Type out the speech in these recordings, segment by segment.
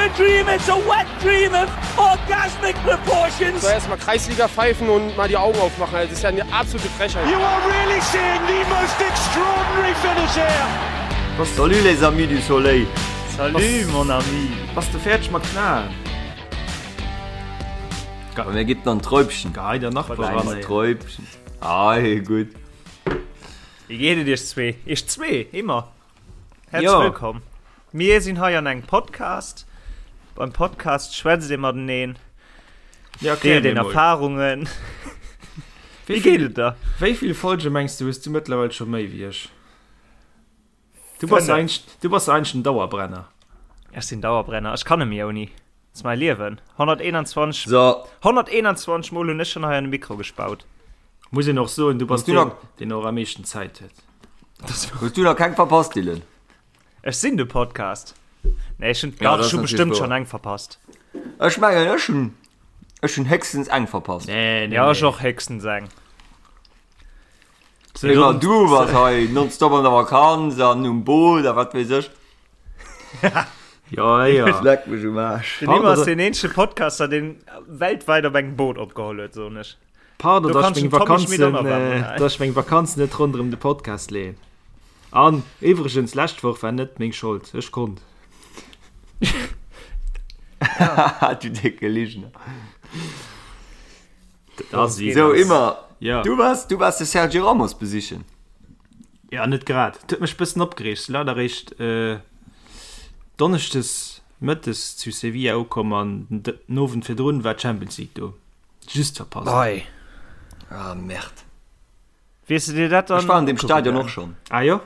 a dream, it's a wet dream of orgasmic proportions. So erstmal Kreisliga pfeifen und mal die Augen aufmachen. Das ist ja eine absolute Frechheit. You are really seeing the most extraordinary finish here. Salut les amis du soleil. Salut mon ami. Bass de fäerdeg mat knaen? Bei mir gibt an Träubchen. Gehei der Nachbar ran ey. Träubchen. Ah, gutt. Wéi geet et iech zwee? Iech zwee, immer. Häerzlech Jo. wëllkomm. Mir sinn hei an engem Podcast. Beim Podcast schwätzt ee mateneen, Ja, erklär deelt mir een mol. Erfarungen. Wéi Wéi geet vill, et der? wéi vill Folge mengs du hues du mëttlerweil scho méi wéi ech? Du bass Fënnef. eigentlech, du bass eigentlech den Dauerbrenner. Ech sinn Dauerbrenner. Ech kann net méi ouni. Dat ass mäi Liewen. 121, So, 121 Mol hunn ech schonn hei an de Mikro gespaut. Muss een och soen, du bass Hues du deen, nach- deen och am meeschten Zäit huet. hues du nach keng verpasst, Dylan? Ech sinn de Podcast. Nee, ech hunn, Ja, dach, dat ech hu ass bestëmmt natierlech schonn wouer. eng verpasst. Ech mengen, ech hunn, ech hunn héchstens eng verpasst. Nee, nee, Ja, ech nee. och héchstens eng. So, Immer dann- du bass hei nonstop an der Vakanz an um Boot a wat weess ech. Ja, ja. Leck mech um Aarsch. Den Pardon, Immo ass da- deen eenzege Podcaster, deen weltwäit op engem Boot opgeholl huet, soen ech. Pardon, Do dass ich kannst meng du Tommy Schmidt Vakanzen, auch noch äh, warten. dass ich meng Vakanzen net ronderëm de Podcast leeën. An iwwregens, lescht Woch war net meng Schold. Ech konnt. Du décke Ligner. Das ist So, immer. Ja. Du warst, du warst de Sergio Ramos besichen. Ja, net grad. Et huet mech bëssen opgereegt. Sinn leider eréischt äh, Donneschdes mëttes zu Sevilla ukomm an den Owend virdrun war d'Champions League do. Just verpasst. Ei. Ah, merde. Wiers du dir dat dann Ech war an deem ukucke Stadion gaangen? och schonn. Ah jo?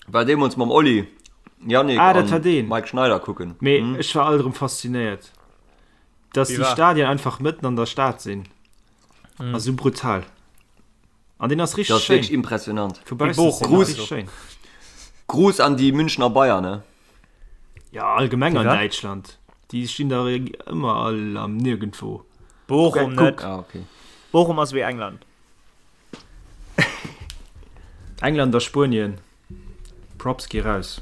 War deemools mam Oli, Yannick Ah, dat war an deen. Mike Schneider kucken. Mee ech war alt erëm faszinéiert, dass Wie déi war? Stadien einfach mëtten an der Stad sinn. Ass esou brutal. An deen ass Dat richteg ass wierklech schéin. impressionant. Vu baussen Bochum ass deen Gruß. richteg schéin. Gruß an déi Münchner Bayern, ne? Ja, allgemeng an wat? Däitschland. Déi stinn da ëmmer all am Nirgendwo. Bochum Guck. net. Ah, okay. Bochum ass wéi England. England a Spuenien. Props gi raus.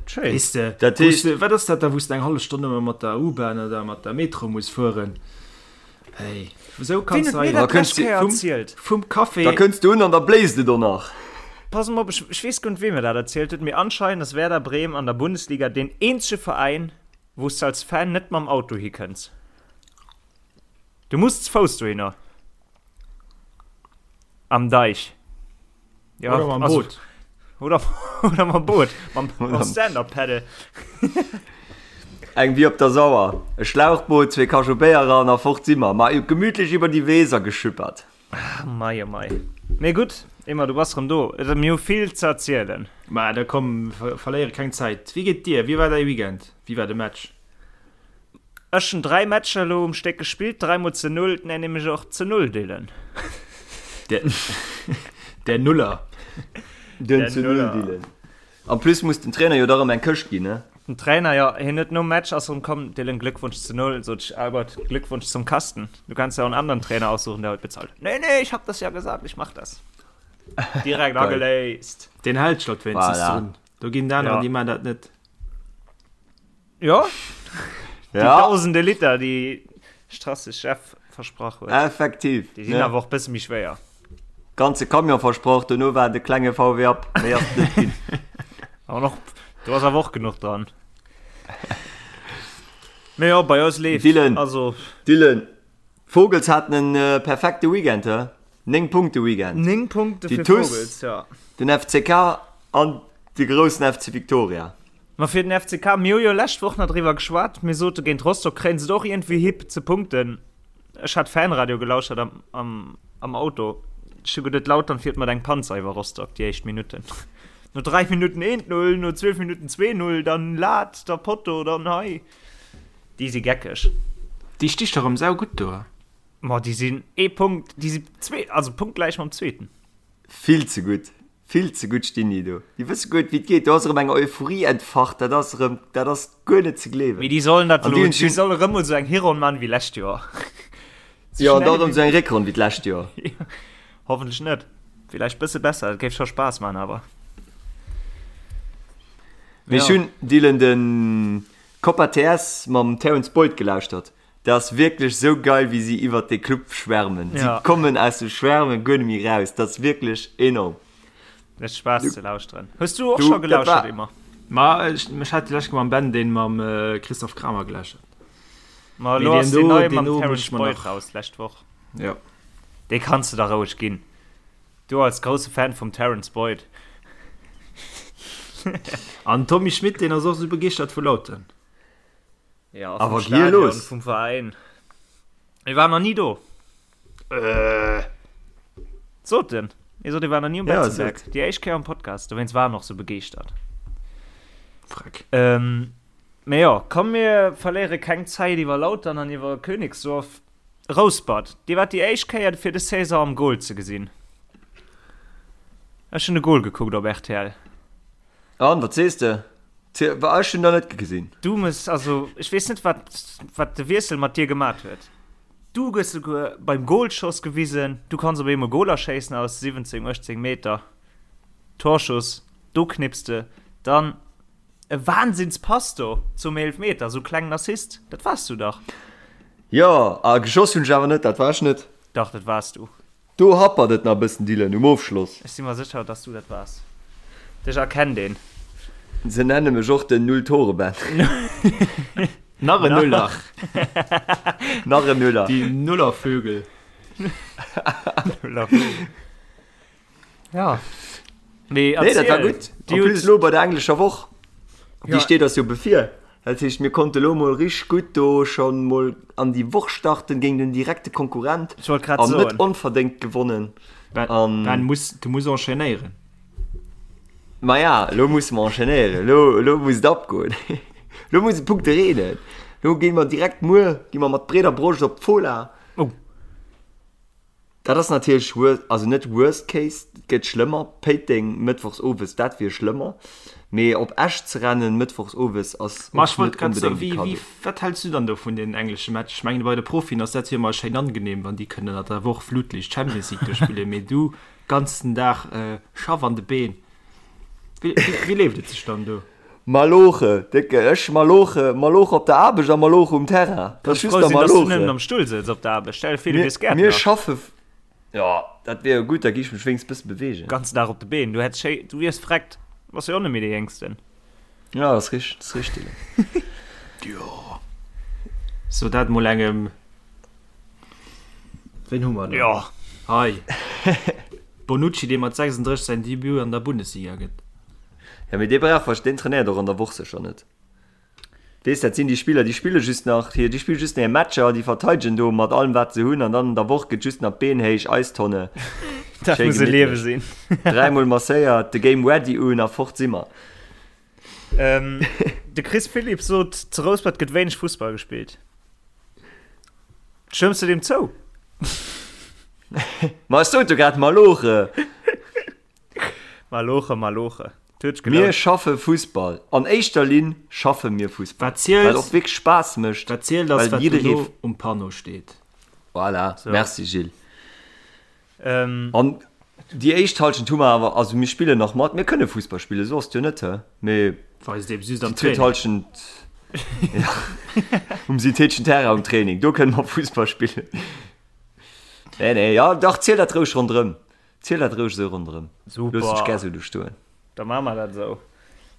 Schéin. Weess de, Dat wous heescht- de, wat ass dat da, wou s de eng hallef Stonn ëmmer mat der U-Bahn oder mat der Metro muss fueren? Hey, esou Wien kanns huet de mir hei dat Da kënns lescht du Kéier vum, erzielt? vum Café. Da kënns du un an da bléist et och nach. Pass mol op, ech, ech weess guer net, wee mir dat erzielt huet, mee anscheinend ass Werder Bremen an der Bundesliga deen eenzege Veräin, wou s de als Fan net mam Auto hikënns. Du muss ze Fouss dohinner. Am Deich. Ja, Oder mam also, Boot. Oder, oder mam Boot. Mam, mam Stand-Up-Paddle. Eng wéi op der Sauer. E Schlauchboot, zwee Kachobéier eran a fort si mer. Ma gemütlech iwwer déi Weser geschüppert. Mei, oh mei. Mee gutt, Emma, du bass rëm do. Et mir hu vill ze erzielen. Ma da komm, verléiere keng Zäit. Wéi geet dir? Wéi war däi Weekend? Wéi war de Match? Ech hun 3 Matcher elo um Stéck gespillt, 3 mol ze 0, nennen mech och ze 0 Dylan. Der Nuller. Den ze 0 Dylan. En plus muss den Trainer jo da rëm eng Këscht ginn, ne? Den Trainer, jo, hien huet nom Match ass rëm komm, Dylan, Glückwunsch zu 0, sot ech, Albert, Glückwunsch zum Kasten, du kannst ja auch einen anderen Trainer aussuchen, der heute bezahlt. Nee, nee, ich hab das ja gesagt, ich mach das. Direkt ageléist. Deen hält sech dat wéinstens Voilà. drun. Do ginn d'aner, Ja. déi man dat net. Jo, déi Ja, tausende Liter, déi Strasse Chef versprach huet, effektiv. déi sinn Ne? awer och bësse méi schwéier. Ganze Camion versproch, dono war de klenge VW Up, méi ass et net ginn. Awer noch, do ass awer och genuch dran. Mee jo, bei eis leeft. Dylan. Also Dylan, d'Vogels haten en äh, perfekte Weekend, hä? 9 Punkte Weekend. 9 Punkte Déi fir TuS, Vogels, ja. Den FCK an de groussen FC Victoria. Ma fir den FCK, mir hu jo lescht Woch nach driwwer geschwat, mir sote géint Rostock kréien se et och iergendwéi hi ze punkten. Ech hat Fanradio gelauschert am, am, am Auto. Ech hu geduet, Lautern fiert mat engem Panzer iwwer Rostock déi éischt Minutten. No 3 Minutten 1-0, no 12 Minutten 2-0, dann Lat, da Potto, dann hei. Déi si geckeg. Déi sti scho rëm saugutt do. Ma déi sinn ee Punkt, déi si zwee, also punktgläich mam Zweeten. Vill ze gutt, vill ze gutt stinn déi do. Déi wësse guer net wéi et geet. Do ass erëm eng Euphorie entfacht, dat ass erëm, dat ass guer net ze gleewen. Mee déi sollen dat An déi elo, hunn déi schonn, solle rëm mol esou eng Hironn man wéi lescht Joer. Sou jo, an da schnell erëm wéi esou eng Réckronn wéi d'lescht Joer. Hoffentlech net. Villäicht bësse besser, dat géif scho Spaass man awer. Mee ech hunn, Dylan, de Copa TS mam Terence Boyd gelauschtert. Dat ass wierklech sou geil, wéi si iwwert dee Club schwärmen. Si kommen aus dem Schwärmen guer net méi raus. Dat ass wierklech enorm. Mécht Spaass ze lauschteren. Hues du och scho gelauschtert, Emma? Ma ech, ech hat déi lescht Kéier mam Ben deen mam Christophe Kramer gelauschtert. Ma elo ass deen neie mam Terence Boyd raus, d'lescht Woch. Jo. Dee kanns de der roueg ginn. Du als grousse Fan vum Terence Boyd. An Tommy Schmitt, deen ass och sou begeeschtert vu Lautern. Ja, vum Stadion, vum Veräin. Mir waren nach ni do. Äh. Sot en. Hie sot, hie war nach ni um Betzenberg. Ja, Déi éischt Kéier am Podcast. Dowéinst war en och sou begeeschtert. Freck. Ähm, mee jo, komm mir verléiere keng Zäit iwwer Lautern an iwwer Königsdorf. Rouspert, Dir waart déi éischt Kéier fir des Saison am Goal ze gesinn. Ech hunn de Goal gekuckt op rtl. An, wat sees de? Ech hunn der net gesinn. Du muss, also ech weess net wat wat de Wiessel mat dir gemat huet. Du gëss souguer beim Goalschoss gewisen, du kanns op eemol Goaler schéissen aus 17, 18 Meter. Torschuss, do knipps de dann. E Wahnsinnspass do zum Eelfmeter, sou klengen Assist, dat wars du dach. Jo, a geschoss hunn ech awer net, dat war ech net. Dach, dat wars du. Do happert et nach e bëssen, Dylan, um Ofschloss. Ech si mer sécher, dass du dat wars. Dech erkennt een. Se nenne mech och den Null-Tore-Ben. Nach en Nuller. Nach en Nuller. Déi Nullervögel. Nullervögel. Ja. Nee, nee dat war gutt. En plus lo bei der englescher Woch, déi steet eis jo bevir. Dat heescht, mir konnte lo mol richteg gutt do schonn mol an déi Woch starten géint en direkte Konkurrent. Ech wollt grad An soen. net onverdéngt gewonnen. Ben, An Ben muss, du muss enchaînéieren. Maja, lo musse mer enchaînéieren. Lo, lo muss et abgoen. Lo muss et Punkte reenen. Lo gi mer direkt muer, gi mer mat breeder Broscht op d'Fola. Oh. Dat ass natierlech wor, also net worst case, et gëtt schlëmmer, Péiteng mëttwochs owes, dat wier schlëmmer, mee op Esch ze rennen mëttwochs owes ass Ma ech och wollt net grad soen, onbedéngt e wéi, wéi, Cadeau. wat häls du dann do vun deenen englesche Match? Ech mengen bei de Profien ass dat jo ëmmer schéin angenehm, wann déi kënnen an der Woch Flutlicht Champions League do spillen, mee du ganzen Dag Schaff an de Been, wéi, wéi leeft et sech dann do? Maloche, décke, ech maloche, maloche op der Aarbecht a maloche um Terrain. Dat ass Kanns just frou der sinn, dass du nëmmen Maloche. am Stull sëtz op der Aarbecht. Stell dir vir, du Mir, wiers mir Gäertner. schaffe, jo, dat wier jo gutt, da gi ech mech wéinstens bësse beweegen. Ganzen Dag op de Been, du hätt schéi, du wiers vreckt. Bass jo och net méi dee Jéngsten. Ja, dat ass richteg, dat ass richteg. Jo, so dat mol engem. Ween hu mer do? Jo. Hei. Bonucci, dee mat 36 säin Debut an der Bundesliga gëtt. Ja, mee dee brauch wahrsch, deen trainéiert och an der Woch sécher net. Weess, dat sinn déi Spiller, déi spille just nach hir, déi spille just nach hir Matcher, déi verteidegen do mat allem wat se hunn an dann an der Woch gëtt just nach d'Been héich, Eistonne, Dat schéi muss e Liewe gemittlech. sinn. Dräimol masséiert, de Game Ready un a fort si mer. Ähm, de Chris Philipps sot, zu Rouspert gëtt wéineg Fussball gespillt. Stëmms du deem zou? Ma ech sot jo grad Maloche. Maloche, Maloche. Mir schaffe Fussball. An éischter Linn schaffe mir Fussball. Wat zielt, Wat och wierklech Spaass mécht. Wat zielt ass, well wat jidderee dono um Panneau steet. Voilà, So. merci Gilles. Ähm, An déi éischt Halschent hu mer awer, also mir spillen nach mat, mir kënne Fussball spillen, esou ass et jo net, hä? Mee Weist eben just am déi zweet Training. Halschent, ja, um syntheteschen Terrain um Training, do kënne mer Fussball spillen. Nee, nee, ja, dach, ziel dat roueg ronderëm. Ziel dat roueg esou ronderëm. Super. Looss dech gär esou do stoen. Da maache mer dat esou.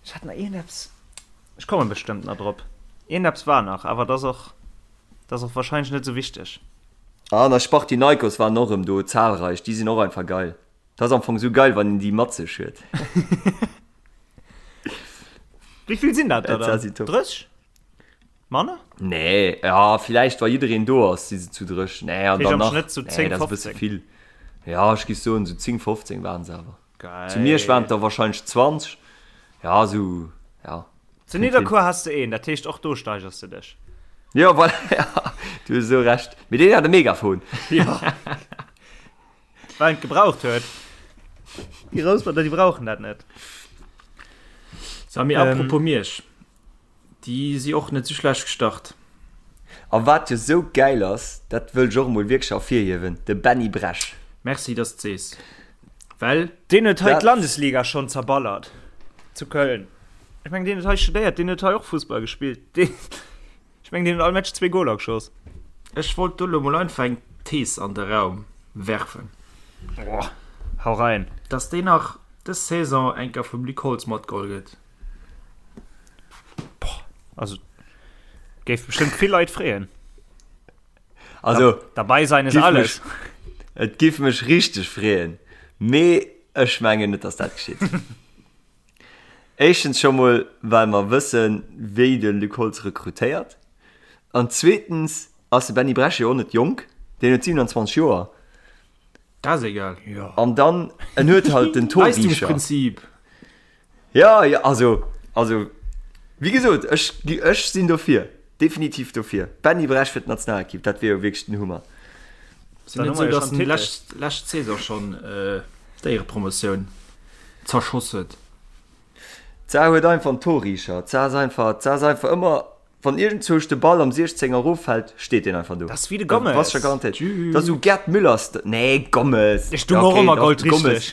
Ech hat nach iergendeppes, ech komme bestëmmt nach drop. Iergendeppes war nach, awer dat ass och, dat ass och wahrscheinlech net esou wichteg. An eis Spartinaikos waren och erëm do, zahlreich. Déi sinn och einfach geil. Dat ass am Fong esou geil, wann een déi mat sech huet. Wéi vill sinn dat der Dat dann? si top. 30? Manner? Nee, ja, villäicht wa jiddereen do ass, si se zu 30. Nee, an Heescht dann am nach, Schnëtt sou nee, 10, dat ass e bësse 15. vill. Ja, ech géif soen, sou 10, 15 waren se awer. Geil. Zu Miersch waren et der wahrscheinlech 20. Ja, sou, ja. Zu Nidderkuer has de een, dat heescht och do steigers de dech. Ja, voilà, ja, du hues esou Recht. Mee deen hat e Megafon. Ja. Well en et gebraucht huet. Déi Rousperter, déi brauchen dat net. Sami, Ähm. apropos Miersch, Déi si och net sou schlecht gestart. A wat jo sou gäil ass, dat wëll ech och emol wierklech ervirhiewen, de Benny Bresch. Merci dass de sees, well. Deen huet hei Dat. d'Landesliga schonn zerballert zu Köln. Ech mengen, deen huet hei studéiert, deen huet hei och Fussball gespillt. Deen, ech mengen, deen huet all Match zwee Goler geschoss. Ech wollt do lo mol einfach eng Thees an de Raum werfen. Boah, hau rein. Dass deen nach dës Saison eng Kéier vum Luc Holtz matgeholl gëtt. Boah, also géif bestëmmt vill Leit freeën. Also, dabei sein ist alles. Mech, et giff mech richteg freeën, mee ech mengen net, dass dat geschitt. Éischtens scho mol, well mer wëssen, wéi de Luc Holtz rekrutéiert. An zweetens ass de Benny Bresch jo och net jonk, deen huet 27 Joer. Dat ass egal. An dann, en huet halt den Torricher. Leistungsprinzip. Ja, ja, also, also, wéi gesot, ech, ech sinn dofir, definitiv dofir. Benny Bresch fir d'Nationalekipp, dat wier jo wierklech den Hummer. Ass net esou, dass en lescht, lescht Saison schonn d'Éierepromotioun zerschoss huet? D'Saar huet einfach en Torricher. D'Saar ass einfach, d'Saar ass einfach ëmmer, wann iergendzwousch de Ball am 16 erof fält, steet deen einfach do. Dat ass wéi de Gomez. Bass scho garantéiert. Dat ass esou Gerd Müller-St-, nee, Gomez. Ech du och ëmmer goldrichteg.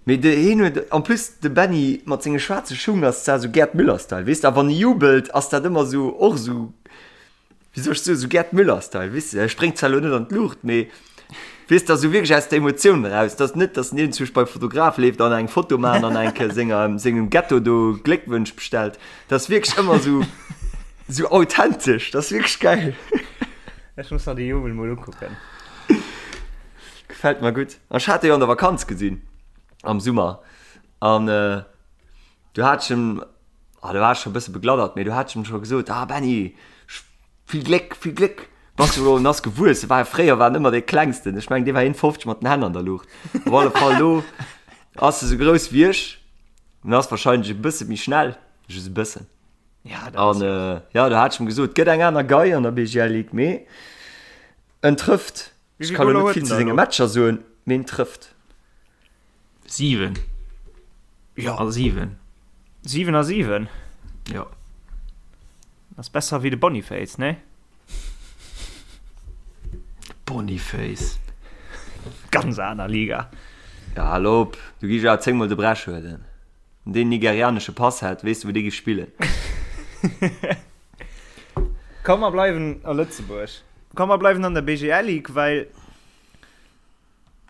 Mee de hien huet, en plus de Benny mat senge schwaarze Schung ass zwar esou Gerd Müller-Style, weess de, a wann e jubelt, ass dat ëmmer esou, och esou. Wéi soll ech soen, esou Gerd Müller-Style, weess de, e spréngt zwar elo net an d'Luucht, mee weess de, esou wierklech aus der Emotioun eraus, dass net, dass en iergendzwousch beim Fotograf leeft an eng Foto maachen an eng Kéier senger, sengem Ghetto do Gléckwënsch bestellt. Dat ass wierklech ëmmer esou, esou authentesch, dat ass wierklech gäil. Ech muss mer déi Jubel mol ukucken. Gefält mer gutt. An ech hat e jo an der Vakanz gesinn, am Summer, an du hat ech em, Ah, do war ech scho e bësse begladdert, mee du hat ech em scho gesot, ah Benny, vill Gléck, vill Gléck. Bass du elo, en ass gewuess, e war fréier war en ëmmer dee klengsten, ech mengen dee war 1,50 mat den Hänn an der Luucht. Op alle Fall elo ass e sou grouss wéi ech, en ass wahrscheinlech e bësse méi schnell, just e bëssen. Ja, dat ass An jo, do hat ech em gesot, gëtt eng aner Gei an der BGL Ligue, mee en trëfft. Wéi Ech vill ka lo Goler net huet vill en zu da senge elo? Matcher soen, mee en trëfft. 7. Ja. A 7. 7 a 7? Jo. Ass besser wéi de Boniface, nee? Boniface. Ganz aner Liga. Ja, hal op, du gi ech awer 10 mol de Bresch huelen. Wann deen nigerianesche Pass hätt, weess de wou dee gi spillen. Komm mer bleiwen a Lëtzebuerg. Komm mer bleiwen an der BGL Ligue, well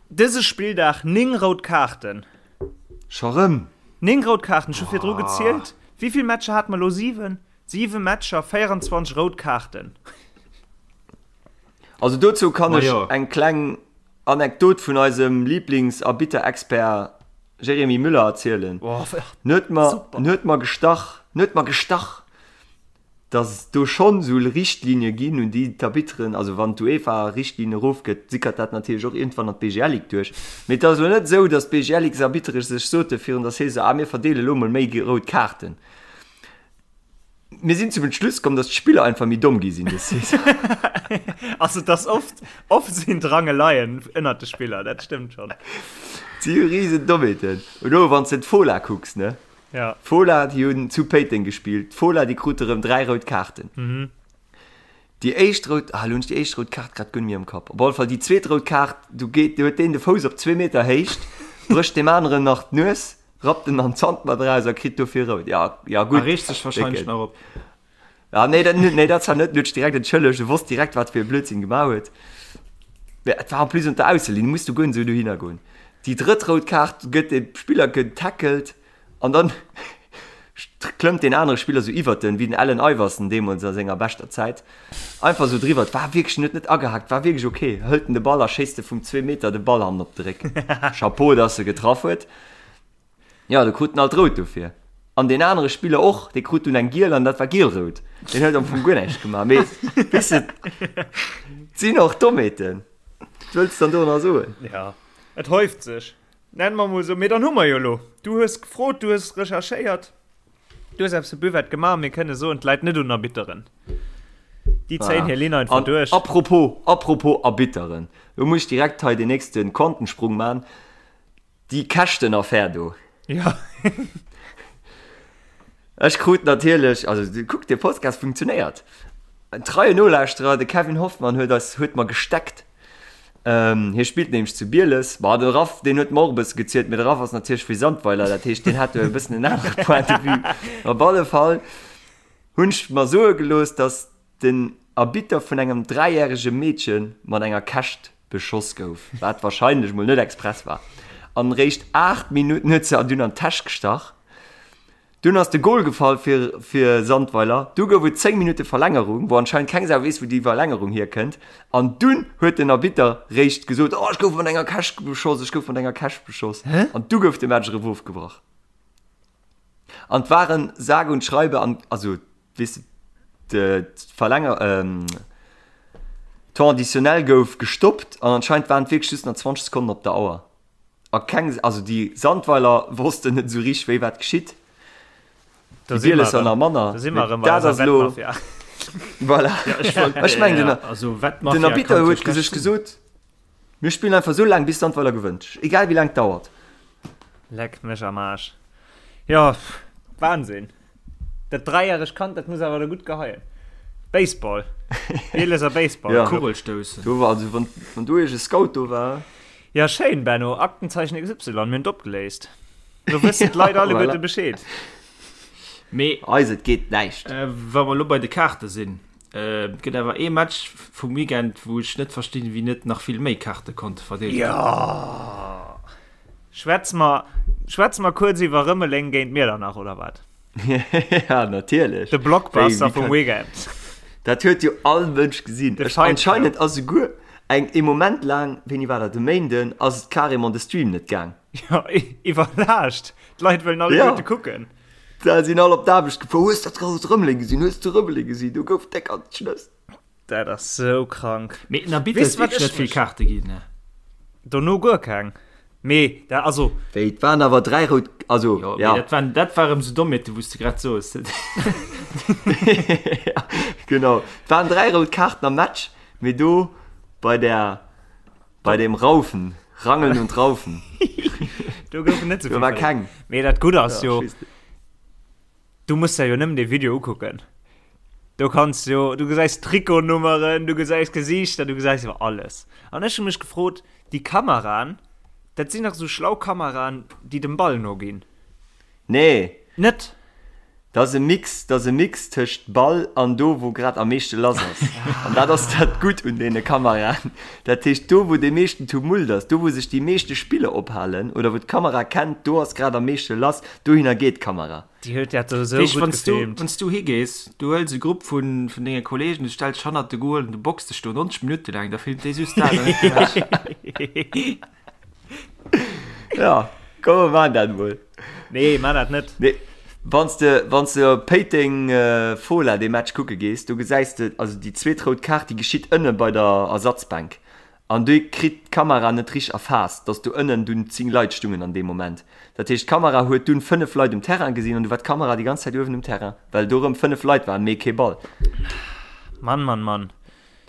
Dëse Spilldag 9 rout Kaarten. Scho rëm? 9 rout Kaarten, ech hu virdru gezielt. Wéi vill Matcher hate mer elo? 7? 7 Matcher, 24 rout Kaarten. Also dozou kann ech Majo. eng kleng Anekdot vun eisem Lieblingsarbitter-Expert Jérémy Müller erzielen. Boah, En huet mer, super. en huet mer gestach, en huet mer gestach, dass et do schonn esou Richtlinie ginn, un déi d'Arbitteren, also wann d'UEFA Richtlinien erofgëtt, sickert dat natierlech och iergendwann an d'BGL Ligue duerch. Mee et ass elo net esou, dass d'BGL-Ligue-Arbittere sech sote virun der Saison, ah mir verdeele elo mol méi rout Kaarten. Mir sinn zum Entschluss komm, dass d'Spiller einfach méi domm gi sinn dës Saison. Also et ass oft, oft sinn d'Rangeleien ënnert de Spiller, dat stëmmt schonn. Si hu risen Dommheeten. Elo wann s de d'Fola kucks, ne? Ja. D'Fola, déi hunn zu Péiteng gespillt. D'Fola, déi krute rëm 3 rout Kaarten. Déi éischt rout, ah, elo hunn ech déi éischt rout Kaart grad guer net méi am Kapp. Op alle Fall déi zweet rout Kaart, do geet, do huet deen de Fouss op zwee Meter Héicht, brécht deem aneren nach d'Nues, rappt en an d'Zant mat eraus a kritt dofir rout. Ja, ja A gutt. reegt sech wahrscheinlech Décken. nach op. Ah, nee, dat, nee, dat zwar net, en huet sech direkt entschëllegt, e wosst direkt, wat fir e Blödsinn gemaach huet. Mä et war en plus un der Ausselinn, du muss du guer net esou dohinner goen. Déi drëtt rout Kaart gëtt de Spiller getackelt an dann klëmmt deen anere Spiller esou iwwert en, wéi den Allen Iverson deemools a senger beschter Zäit, einfach esou driwwer. Et war wierklech, en huet net agehaakt, war wierklech ok. Hëlt en de Ball a schéisst e vum zwee Meter de Ball hannen op de Réck. Chapeau, dass e getraff huet. Jo, do krut en alt rout dofir. An deen anere Spiller och, dee krut dunn eng giel an dat war giel-rout. Deen huet am Fong guer näischt gemaach. Mee weess de, et sinn och Dommheeten. Wat wëlls de dann do nach soen? Ja, et häuft sech, nenne mer mol esou. Mee dann hu mer jo elo, du hues gefrot, du hues recherchéiert, du hues eppes fir Buvette gemaach, mir kënne soen, et läit net un Arbitteren. Déi zéien hir Linn einfach An duerch. apropos, apropos Arbitteren, do muss ech direkt hei den nächste Quantensprung man. Déi Käschtenaffär do. Ja. Ech krut natierlech, also kuck, de Podcast funktionéiert. En treien Nolauschterer, de Kevin Hoffmann, huet eis, huet mer gesteckt. Hie spillt nämlech zu Bieles. Ma de Raff, deen huet mer och e bësse gezielt, mee de Raff ass natierlech vu Sandweiler, dat heescht, deen hat do e bëssen en anere Point de vue. Op alle Fall hunn ech mer soe gelooss, dass den Arbitter vun engem dräijärege Meedche mat enger Käscht beschoss gouf, wat warscheinlech mol net express war. An réischt 8 Minutten huet se dunn an d'Täsch gestach. Dunn ass de Gol gefall fir fir Sandweiler. Du gouf et 10 Minutte Verlängerung, wou anscheinend keng Sau weess, wou déi Verlängerung hierkënnt. An dunn huet den Arbitter réischt gesot, Oh, ech gouf mat enger Käscht beschoss, ech gouf mat enger Käscht beschoss. An du gouf de Match erëm ofgebrach. An et waren sage und schreibe an, also weess de, d'Verlänger, Temps additionnel gouf gestoppt an anscheinend waren et wierklech just nach 20 Sekonnen op der Auer. A keng, also déi Sandweiler wossten net esou richteg, wéi wat geschitt. Déi Bielesser nach manner. Da si mer erëm bei eiser Wettmafia. Voilà. Ech mengen, den, also, den Arbitter huet sech gesot, mir spillen einfach esou laang, bis Sandweiler gewënnt. Egal wéi laang et dauert. Leck mech am Aarsch. Jo, Wahnsinn. Dat dräijäregt Kand, dat muss awer da gutt geheien. Baseball. Bieleser Baseball. Ja. Kugelstoussen. Do war, also wann, wann do iergend e Scout do war. Ja, schéin, Benno. Aktenzeichen XY, mir hunn et opgeléist. Lo wëssen d'Leit alleguerte voilà. Bescheed. Mee. Eis, et geet näischt. Äh, wa mer lo bei de Kaarte sinn, äh, et gëtt awer ee Match vum Weekend, wou ech net verstinn, wéi net nach vill méi Kaarte konnte verdeelt ginn. Ja! Schwätze mer, schwätze mer kuerz iwwer Rëmeleng géint Miedernach, oder wat? Ja, natierlech. De Blockbuster vum Weekend. Dat huet jo all Mënsch gesinn. Ech, anscheinend ass esouguer eng, ee Moment laang, wéini war dat, e Méinden, ass et carrément de Stream net gaang. Ja, iwwerlaascht. D'Leit wëllen alleguerte kucken. Da sinn all op d'Aarbecht gefuer. Hues dat grousst Rëmeleng gesinn? Hues de Rëmeleng gesinn? Do gouf déck an d'Schnëss. Dat ass sou krank. Mee den Arbitter huet wierklech net vill Kaarte ginn, ne? Dono guer keng. Mee dat, also. Wéi, et waren awer 3 rout, also, jo. Mee dat waren, dat war erëm sou Dommheeten, wou s de grad soos. Ja, genau. Et waren 3 rout Kaarten am Match, mee do bei der, bei dem Raufen, Rangeln und Raufen. Do goufen net sou vill. Do war keng. Mee dat Gutt ass jo. Du muss der jo nëmmen dee Video ukucken. Do kanns jo, du gesäis Trikotnummeren, du gesäis Gesiichter, du gesäis jo alles. An ech hu mech gefrot, déi Kameraen, dat sinn dach esou schlau Kameraen, déi dem Ball noginn. Nee. Net? Dat ass e Mix, dat ass e Mix tëscht Ball an do, wou grad am meeschte lass ass. An dat ass dat Gutt un deene Kameraen. Dat heescht, do wou dee meeschten Tumult ass, do wou sech déi meeschte Spiller ophalen oder wou d'Kamera kennt, do ass grad am meeschte lass, dohinner geet d'Kamera. Déi huet dat do esou gutt gefilmt. Wann s du higees, du huels e Grupp vun denge Kollegen, du stells dech hannert de Goal an du box dech do 90 Minutte laang, da filmt dee just dat an net de Match. Ja, komm mer maachen dat emol. Nee, maach dat net. Nee, wann s de, wann s de op Péiteng Fola dee Match kucke gees, do gesäis de, also déi zweet rout Kaart, déi geschitt ënne bei der Ersatzbänk. An déi kritt d'Kamera net richteg erfaasst, dass do ënnen dunn 10 Leit stungen an deem Moment. Dat heescht, d'Kamera huet dunn 5 Leit um Terrain gesinn an du war d'Kamera déi ganz Zäit uewen um Terrain, well do rëm 5 Leit waren, mee kee Ball. Mann, Mann, Mann.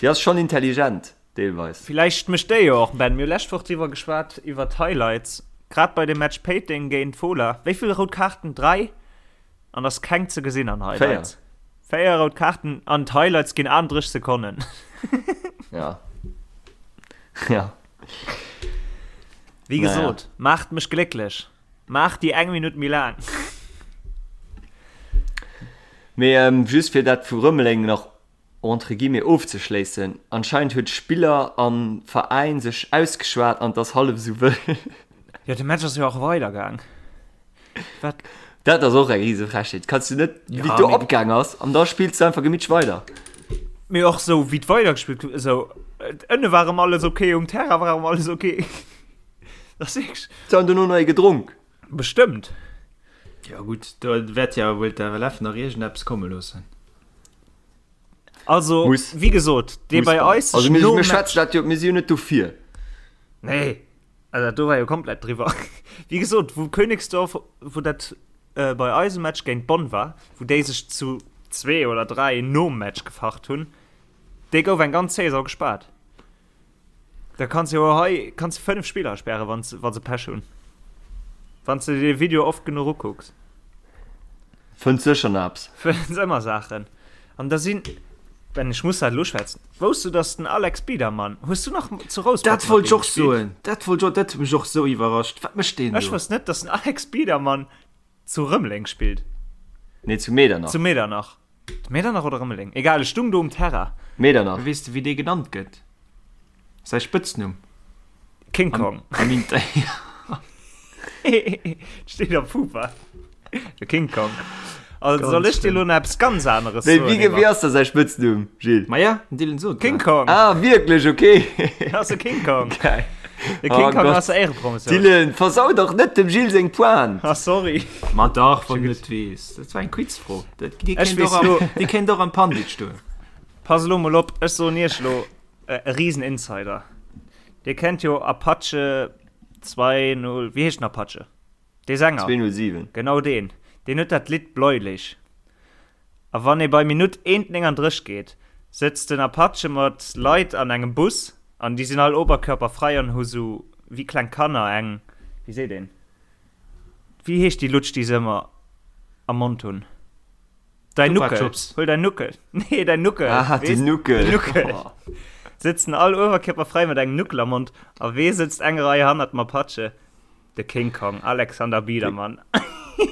Déi ass schonn intelligent, deelweis. Villäicht mécht déi jo och, Ben, mir hu lescht Woch driwwer geschwat, iwwer d'Highlights, grad bei dem Match Péiteng géint Fola. Wéi vill rout Kaarten? 3? An ass keng ze gesinn an Highlights. 4 rout Kaarten an d'Highlights ginn 38 Sekonnen. Ja. Ja. Wéi gesot, naja. Maacht mech glécklech. Maacht déi eng Minutt méi laang. Mee ähm, just fir dat vu Rëmeleng nach entre guillemets ofzeschléissen, anscheinend huet Spiller an Veräin sech ausgeschwat an 't ass hallef esou wëll. Jo, de Match ass jo och weidergaang. Wat? Dat ass och eng rise Frechheet. Kanns du net, wéi ja, do opgaang ass, an da spills du einfach gemitsch weider. Mee och sou, wéi weider gespillt gouf, esou, ënne war erëm alles okay, um Terrain war erëm alles okay. Dat ass wierklech. Se han dono nach ee gedronk. Bestëmmt. Ja gutt, do wäert ja wuel d'FLF nach iergendeppes komme loossen. Also, Muss. wéi gesot, dee bei eis Also, mir, mir schwätzen dat jo, mir si jo net dofir. Nee. Also dat do war jo komplett driwwer. Wéi gesot, wou Königsdorf, wou dat äh, bei eisem Match géint Bonn war, wou déi sech zu zwee oder dräi nom Match gefacht hunn, dee gouf eng ganz Saison gespaart. Da kanns jo hei kanns du fënnef Spiller sperren, wann wa se Pech hunn. Wann du de Video oft genuch ukucks. Fënns sécher nach eppes. Fënns ëmmer Saachen. An da sinn. Ben, ech muss dat elo schwätzen. Wousst du, dass den Alex Biedermann, hues du nach zu Rouspert Dat wollt ech och soen, dat wollt ech och, dat huet mech och sou iwwerrascht. Wat mécht deen do? Ech wousst net, dass den Alex Biedermann zu Rëmeleng spillt. Nee, zu Medernach. Zu Medernach. Medernach oder Rëmeleng? Egal, ech stung do um Terrain. Medernach. Weess de, wéi dee genannt gëtt? Säi Spëtznumm? King Kong. Am Inter. Steet am Fupa. De King Kong. Also soll ech dir lo nach eppes ganz aneres soen? Wéi, wéi ass da säi Spëtznumm, Gilles? Ma ja, den Dylan sot King Kong. Ah, wierklech, okay. Ass de King Kong. Geil. De King oh Kong Gott. ass der Éierepromotioun. Dylan, versau dach net dem Gilles seng Pointe. Ah, sorry. Ma dach, wann du net weess. Dat war eng Quizfro. Dat, déi Ech kéint weess och am, lo. déi kéint och am Pandit stoen. Pass elo mol op, ech soen iech lo e riesen Insider. Dir kennt jo Apache 2 0, wéi heescht den Apache? Dee Sänger. 207. Genau deen. Deen huet dat Lidd Bläulich. A wann ee bei Minutt 1,39 geet, sëtzt den Apache mat Leit an engem Bus an déi sinn all oberkörperfrei an hu sou wéi kleng Kanner eng, wéi seet een, wéi heescht déi Lutsch déi se ëmmer am Mond hunn? Däin Chupa Nuckel. Chups. Huel däin Nuckel. Nee, däin Nuckel. Ah, Weess? den Nuckel. Den Nuckel. Sëtzen all oberkörperfrei mat engem Nuckel am Mond a wee sëtzt eng Rei hannert dem Apache? De King Kong, Alexander Biedermann.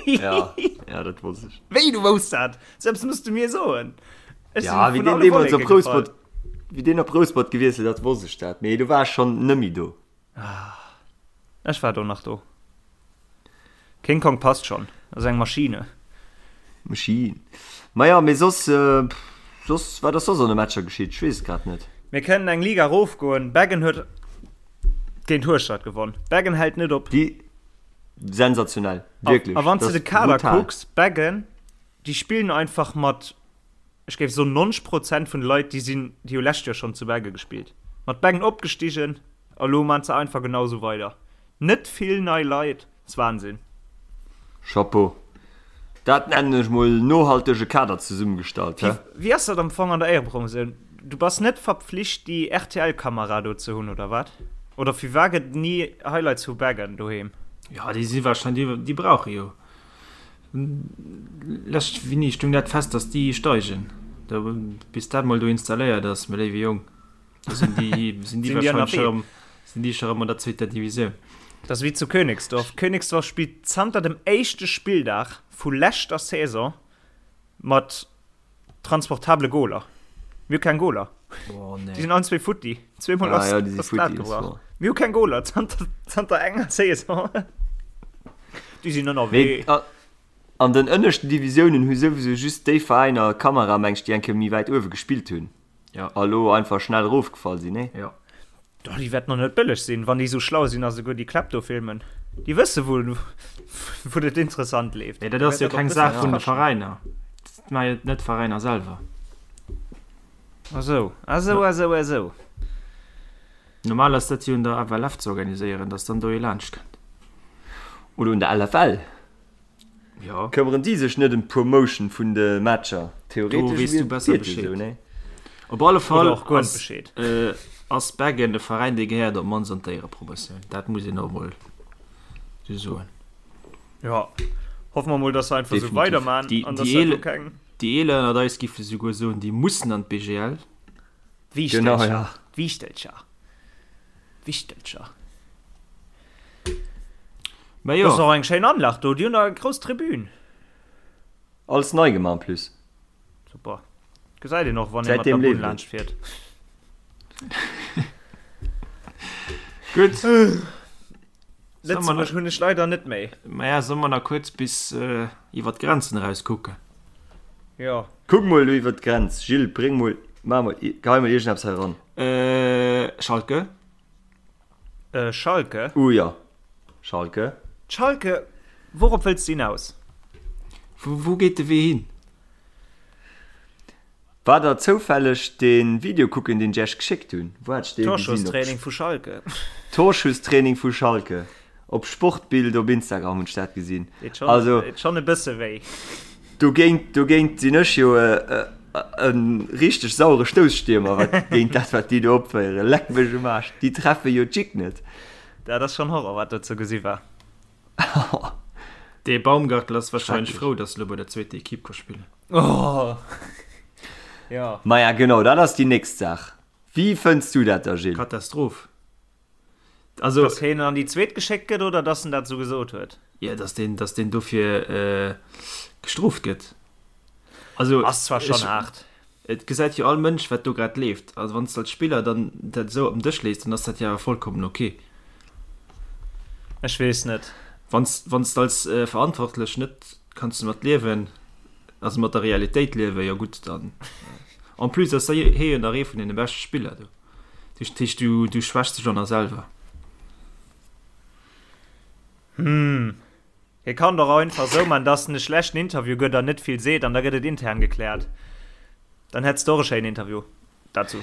Ja, ja, dat wosst ech. Wéi, du wousst dat? Sou eppes muss du mir soen. Ech Ja, sinn wéi vun deen alle deemools Wolleke op Rouspert, gefall. wéi deen op Rouspert gewiesselt ass, wosst ech dat. Mee du war ech schonn nëmmi do. Ech war do nach do. King Kong passt schon, ass eng Maschine. Maschine. Maja, mee soss, soss, wat ass soss an de Matcher geschitt? Ech weess et grad net. Mir kënnen eng Liga erofgoen. Beggen huet géint Hueschtert gewonn. Beggen hält net op. Déi, sensationell, wierklech. A wann s de Dat de Kader brutal. kucks, Beggen, déi spillen einfach mat, ech géif soen 90 Prozent vun de Leit, déi sinn, déi hu lescht Joer schonn zu Beggen gespillt. Mat Beggen opgestigen a lo maan se einfach genau esou weider. Net vill nei Leit, ass Wahnsinn. Chapeau. Dat nennen ech mol nohaltege Kader zesummegestallt, he? Wéi ass dat am Fong an der Éierepromotioun? Du bass net verpflicht déi RTL-Kamera do ze hunn, oder wat? Oder firwat gëtt et ni Highlights vu Beggen doheem? Jo, déi si wahrscheinlech, déi brauche jo. Lescht Winni stung dat fest, datt déi steigen. Da bis dat mol do installéiert ass, mä léiwe Jong. Da sinn déi, sinn déi wahrscheinlech scho rëm, sinn déi scho rëm an der zweeter Divisioun. Dat ass wéi zu Königsdorf. Königsdorf spillt zanter dem éischte Spilldag vu leschter Saison mat transportable Goler. Mir hu keng Goler. Oh, nee. Déi sinn allen zwee futti. Zweemol Ah, ass, ja, déi si ass d'Lat futti, das gebrach. war. Mir hu keng Goler zanter, zanter enger Saison. Déi sinn ënnerwee. Mee a, an den ënneschten Divisiounen hu souwisou just déi Veräiner Kamera, meng ech, déi eng Kéier méi wäit uewe gespillt hunn. Ja. A lo einfach schnell erofgefall sinn, nee? Ja. Doch, déi wäerten och net bëlleg sinn, wann déi sou schlau sinn a souguer déi Kläpp do filmen. Déi wësse wou, wou et interessant leeft. Nee, dat ass jo keng Saach vun de Veräiner. Dat maache jo net d'Veräiner selwer. Ah sou, ah sou, ah sou, ah sou. Normal ass dat jo un der FLF ze organiséieren, datt dann do ee laanscht kënnt. Oder un der LFL. Jo. Këmmeren déi sech net ëm d'Promotion vun de Matcher? Do weess du besser Bescheed. Bescheed. Op alle Fall Oder och guer net ass, Bescheed. äh, ass Beggen e Veräin, dee gehéiert op d'mannst an d'Éierepromotioun. Dat muss een och mol sou soen. Jo, hoffe mer mol, dass se einfach sou Definitiv. weiderman Déi, an dass déi, dat do Eeler, keng. déi Eeler ënnert eis giffe souguer soen, déi mussen an d'BGL. Genau, D'Wiichtelcher, ja. d'Wiichtelcher, d'Wichtelcher. Mä Dat ass jo. och eng schéin Anlag do, déi hunn der eng grouss Tribün. Alles nei gemaach en plus. Super. Gesäit een och, wann ee mat Säitdeem der Bunn leeft et. laanscht fiert. Gutt. Lëtzebuerg hunn ech leider net méi. Maja, solle mer nach kuerz bis iwwer d'Grenzen eraus kucken? Jo. Kuck mol do iwwer d'Grenz, Gilles, bréng mol, maach mol, gehei mol iergendeppes hei eran. Schalke. Schalke? Uh jo, Schalke. Schalke, wourop wëlls de hinaus? Wou geet de Wee hin? War der zoufälleg den Video kucken deen ech iech geschéckt hunn? Wou hat ech dee gesinn? Torschusstraining vu Schalke. Torschusstraining vu Schalke op Sportbild op Instagram hunn ech dat gesinn. Deet schon, Also deet schon e bësse wéi. dogéint dogéint sinn ech jo e richteg sauere Stouss-Stiermer wat géint dat wat déi do opféieren. Leck mech um Aarsch, déi treffe jo d'Jick net. Dat ass schon Horror wat do ze gesi war. Dee Baumgartl ass wahrscheinlech Schrecklech. frou, dass e lo bei der zweeter Equipe ka spillen. Oh. Ja. Maja genau, dat ass déi nächst Saach. Wéi fënns du dat da Gilles? Katastroph. Also, Dass hien an déi zweet geschéckt gëtt oder dass en dat esou gesot huet? Ja, dass deen, dass deen dofir gestrooft gëtt. Also, Ass zwar schonn haart. Et gesäit jo all Mënsch, wat do grad leeft. Also wann s de als Spiller dann dat esou op den Dësch lees, dann ass dat jo awer vollkommen ok. Ech weess net. Wann s, wann s de als Verantwortlech net kanns domat liewen, also mat der Realitéit liewen, jo gutt, dann. En plus ass hie jo nach ee vun deene beschte Spiller do. Dat heescht, du, du schwächs dech och nach selwer. Hm. Hie kann doch och einfach sou man, dass en e schlechten Interview gëtt an net vill seet an da gëtt et intern gekläert. Dann hätts de och e schéinen Interview dazu.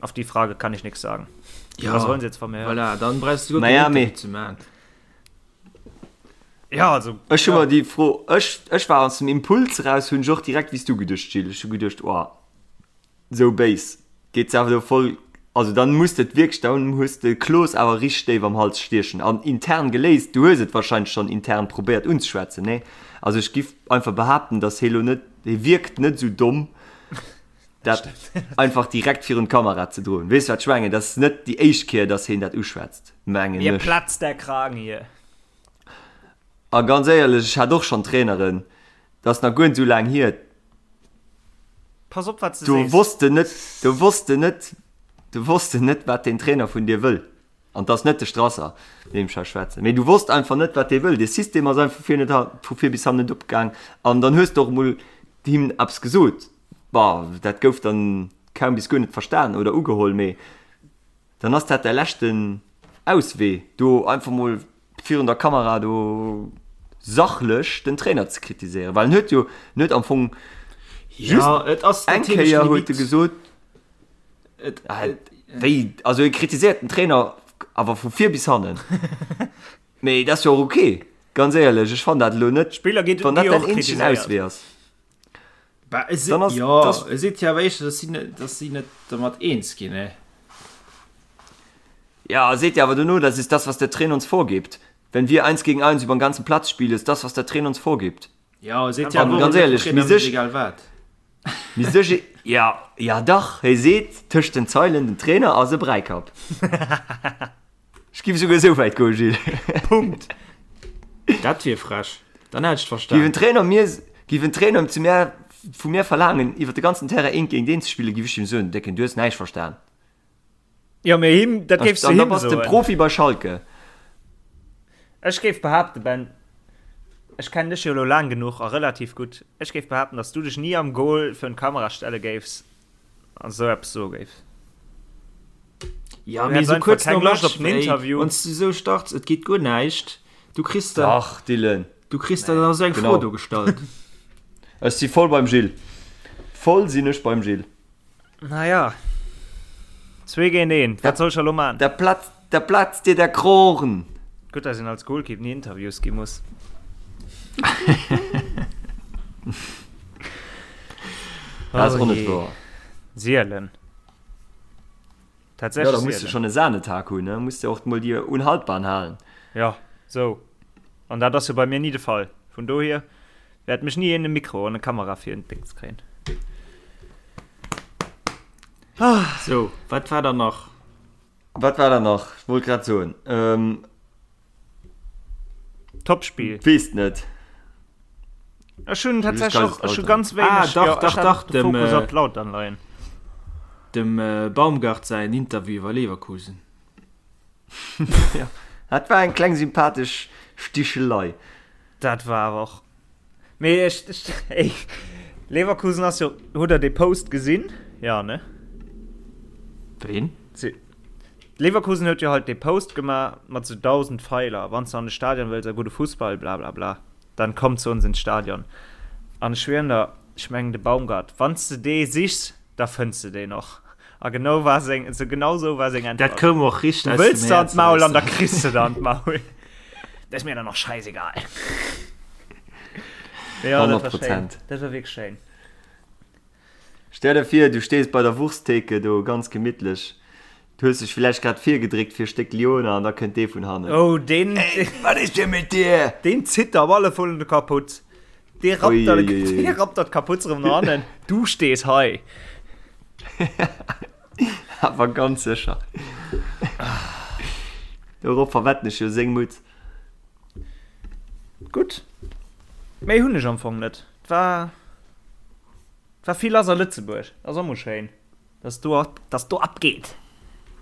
Auf die Frage kann ich nix sagen. Ja, Was wollen Sie jetzt von mir hören? Voilà, dann brauchst du guer Naja, keen mee- Interview ze man. Ja, also. Ech hu ja. mer déi Fro, ech, ech war aus dem Impuls eraus, hunn ech och direkt wéi s du geduecht, Gilles. Ech hu geduecht, oh, Sou béis geet se awer do voll, also dann muss de et wierklech, dann hues de Kloos awer richteg déif am Hals stiechen an intern geléist. Du hues et wahrscheinlech schonn intern probéiert unzeschwätzen, nee? Also ech giff einfach behaapten, dass hie lo net, hie wierkt net sou domm dat einfach direkt virun d'Kamera ze droen. Weess wat ech mengen? Dat ass net déi éischt Kéier, dass hien dat uschwätzt, mengen Mir ech. platzt der Kragen hier. A ganz éierlech, ech hat och schonn Traineren, dat ass nach guer net sou laang hier, Pass op wat s de Do sees. wosst de net, do wosst de net, do wosst de net, wat deen Trainer vun dir wëll. An 't ass net de Strasser, deem ech hei schwätzen, mee du wosst einfach net, wat dee wëll. Dee System ass einfach vir net, vu vir bis hannen net opgaang. An dann hues de och emol him eppes gesot. Bon, dat gouf dann kaum bis guer net verstan oder ugeholl, mee Dann ass dat däi leschten Auswee, do einfach mol virun der Kamera do sachlech den Trainer ze kritiséieren, well en huet jo, en huet am Fong just Ja, et ass eng natierlech Kéier huet e limite. gesot, Et, ah, et, wéi, also e kritiséiert den Trainer awer vu vir bis hannen. Mee dat ass jo och ok, ganz éierlech, ech fannen dat elo net, Spiller gi wann dat gi däin och eenzegen kritiséiert. Auswee ass. Bah, e Dann ass, jo, das, e seet jo awer éischter, dass si net, dass si net dermat eens ginn, ne? Ja, seet jo awer dono, das ist das, was der Trainer uns vorgibt. Wenn wir eins gegen eins über den ganzen Platz spielen, ist das, was der Trainer uns vorgibt. Jo, e seet jo An awer och ganz net, éierlech, Trainer mi mécht sech, egal wat. mi sech, ja, ja dach, hie seet tëscht den Zeilen, den Trainer ass e Bräikapp. Ech giff esouguer esou wäit goen, Gilles. Punkt. Dat wier frech. Dann hätt ech et Giff verstan. en Trainer mir, giff en Trainer zu mär, vu mir verlaangen, iwwer de ganzen Terrain eent géint eent ze spillen, giff ech him soen, Décken, du hues näischt verstan. Jo, mee him, dat géifs du An da him bass de soen. Profi bei Schalke. Ech géif behaapten, Ben, ech kennen dech jo elo laang genuch a relativ gutt, ech géif behaapten, datt s du dech ni am Goal virun d'Kamera stelle géifs an esou eppes soe géifs. Ja, Du mee häss esou einfach kuerz keng nom Loscht Match, op den ey, Interview. wann s du esou starts, et geet guer näischt, du kriss dann, Dach, Dylan. du kriss dann nach esou eng Fro Genau. do gestallt. Ech si voll beim Gilles. Voll sinn ech beim Gilles. Naja, zwee géint een, wat soll ech elo man? Da platzt, da platzt dir der Krogen. Gutt, dass een als Goalkeep ni Interviews gi muss. Dat ass och net Oh jee. wouer. Sielen. Ja, Tatsächlech da muss du sielen. schon e Sahnetag hunn, ne? Muss de och mol déi Unhaltbaren halen. Ja, sou. An dat ass jo bei mir ni de Fall. Vun dohier wäert mech ni een e Mikro an e Kamera fir en Dings kréien. Sou, wat war dann nach? Wat war dann nach? Ech wollt grad soen. Ähm, Topspiel. Weess net. Ech hunn tatsächlech och, ech hu ganz Ah, wéineg, dach, jo, ech dach, hat dach, de dem, Fokus äh, op d'Lautern leien. Dem Baumgart säin Interview iwwer Leverkusen. Ja, dat war eng kleng sympathesch Stichelei. Dat war awer och. Mee ech, ech, ey, Leverkusen ass jo, hutt der dee Post gesinn? Ja, ne? Ween? Si, Leverkusen huet jo halt dee Post gemaach mat sou 1.000 Feiler, wann s de an de Stadion wëlls a gudde Fussball, bla bla bla, dann komm zu uns ins Stadion. An ech schwieren der, ech mengen de Baumgart, wann s de dee sichs, da fënns de deen och. A genau war seng, so genau sou war seng Dat Äntwert. koum och richteg Du aus wëlls dem der an Häerz d'Maul eraus. an da kriss de der an d'Maul. Dat ass mir dann och scheißegal. Ja, dat war 100 schéin. Prozent. Dat war wierklech schéin. Stell der vir, du stees bei der Wursttheke do ganz gemittlech, du hues dech villäicht grad virgedréckt fir e Stéck Lyoner an da kënnt dee vun hannen. Oh, deen, Ey, wat is denn mit dir? deen zitt der op alle Fall de Kaputz. Dee rappt der, Uiuiui. dee rappt der d'Kaputz erëm no hannen. Du stees hei. Awer ganz sécher. Dorop verwetten ech jo seng Mutz. Gutt. Méi hunn ech am Fong net. Et war, et war vill lass a Lëtzebuerg. Ass och mol schéin. Dass do, dass do abgeet.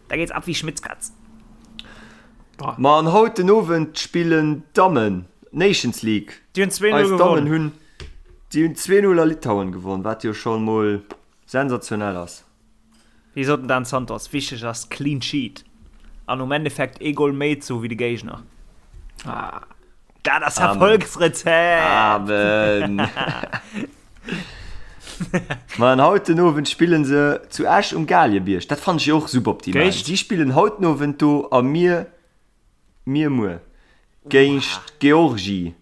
Da geht's ab wie Schmitz Katz. Ma an haut den Owend spillen d'Dammen d'Nations League. Déi hunn 2-0 Eis Dammen gewonnen. hunn, déi hunn 2-0 a Litauen gewonnen, wat jo scho mol sensationell ass. Wéi sot den Dan Santos, wichteg ass clean sheet an um Endeffekt ee Goal méi ze hu wéi de Géigner. Dat ass Erfolgsrezept! Amen! Ma an haut den Owend spillen se zu Esch um Galiebierg. Dat fannen ech jo och suboptimal. Géint? Si spillen haut den Owend do a mir, mir muer géint Georgie.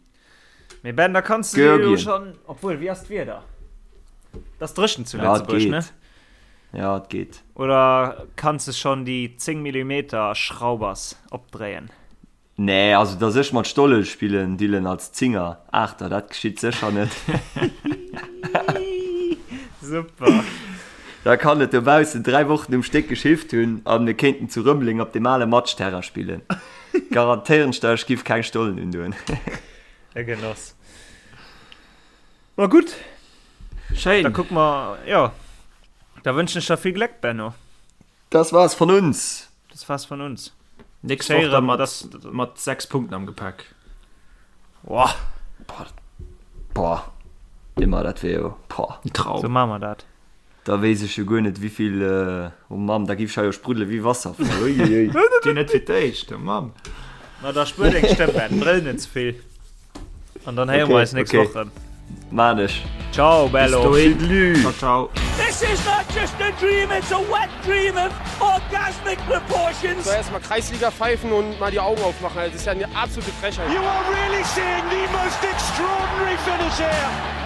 Mee Ben, da kanns du dir jo schonn, obwuel, wéi ass d'Wieder? Et ass dréchen zu Lëtzebuerg, ne? Ja, et geet. Oder kanns de schonn déi 10 Millimeter Schraubers opdréien? Nee, also dass ech mat Stolle spillen, Dylan, als Zinger, Aachter, dat geschitt sécher net. Super. Da kann et dobaussen 3 Wochen um Stéck geschifft hunn a mir kéinten zu Rëmeleng op deem ale Matschterrain spillen. Garantéieren ech der, ech giff keng Stollen undoen. E Genoss. Ma gutt. Schéin. Da kucke mer, jo. Da wënschen ech der vill Gléck, Benno. Das war's von uns. Das war's von uns. Nächst Woch dann mat, mat 6 Punkten am Gepäck. Boah. Boah. Boah. Immer, dat wär jo, boah. Ein Traum. So maache mer dat. Da weess ech jo guer net, wéivill, oh Mamm, da giff ech hei jo spruddele wéi Wasserfall. Uiuiui. Dir net fir d'éischt, oh Mamm. Ma da spuer deng Stëmm, Ben, brëll net ze vill. An dann héiere mer eis nächst okay. Woch rëm. Maan ech. Ciao, bello. Bis dohin. Tüdelü. Ciao, ciao. This is not just a dream, it's a wet dream of orgasmic proportions. So, erstmal Kreisliga pfeifen und mal die Augen aufmachen. Also, das ist ja eine absolute Frechheit. You are really seeing the most extraordinary finish here.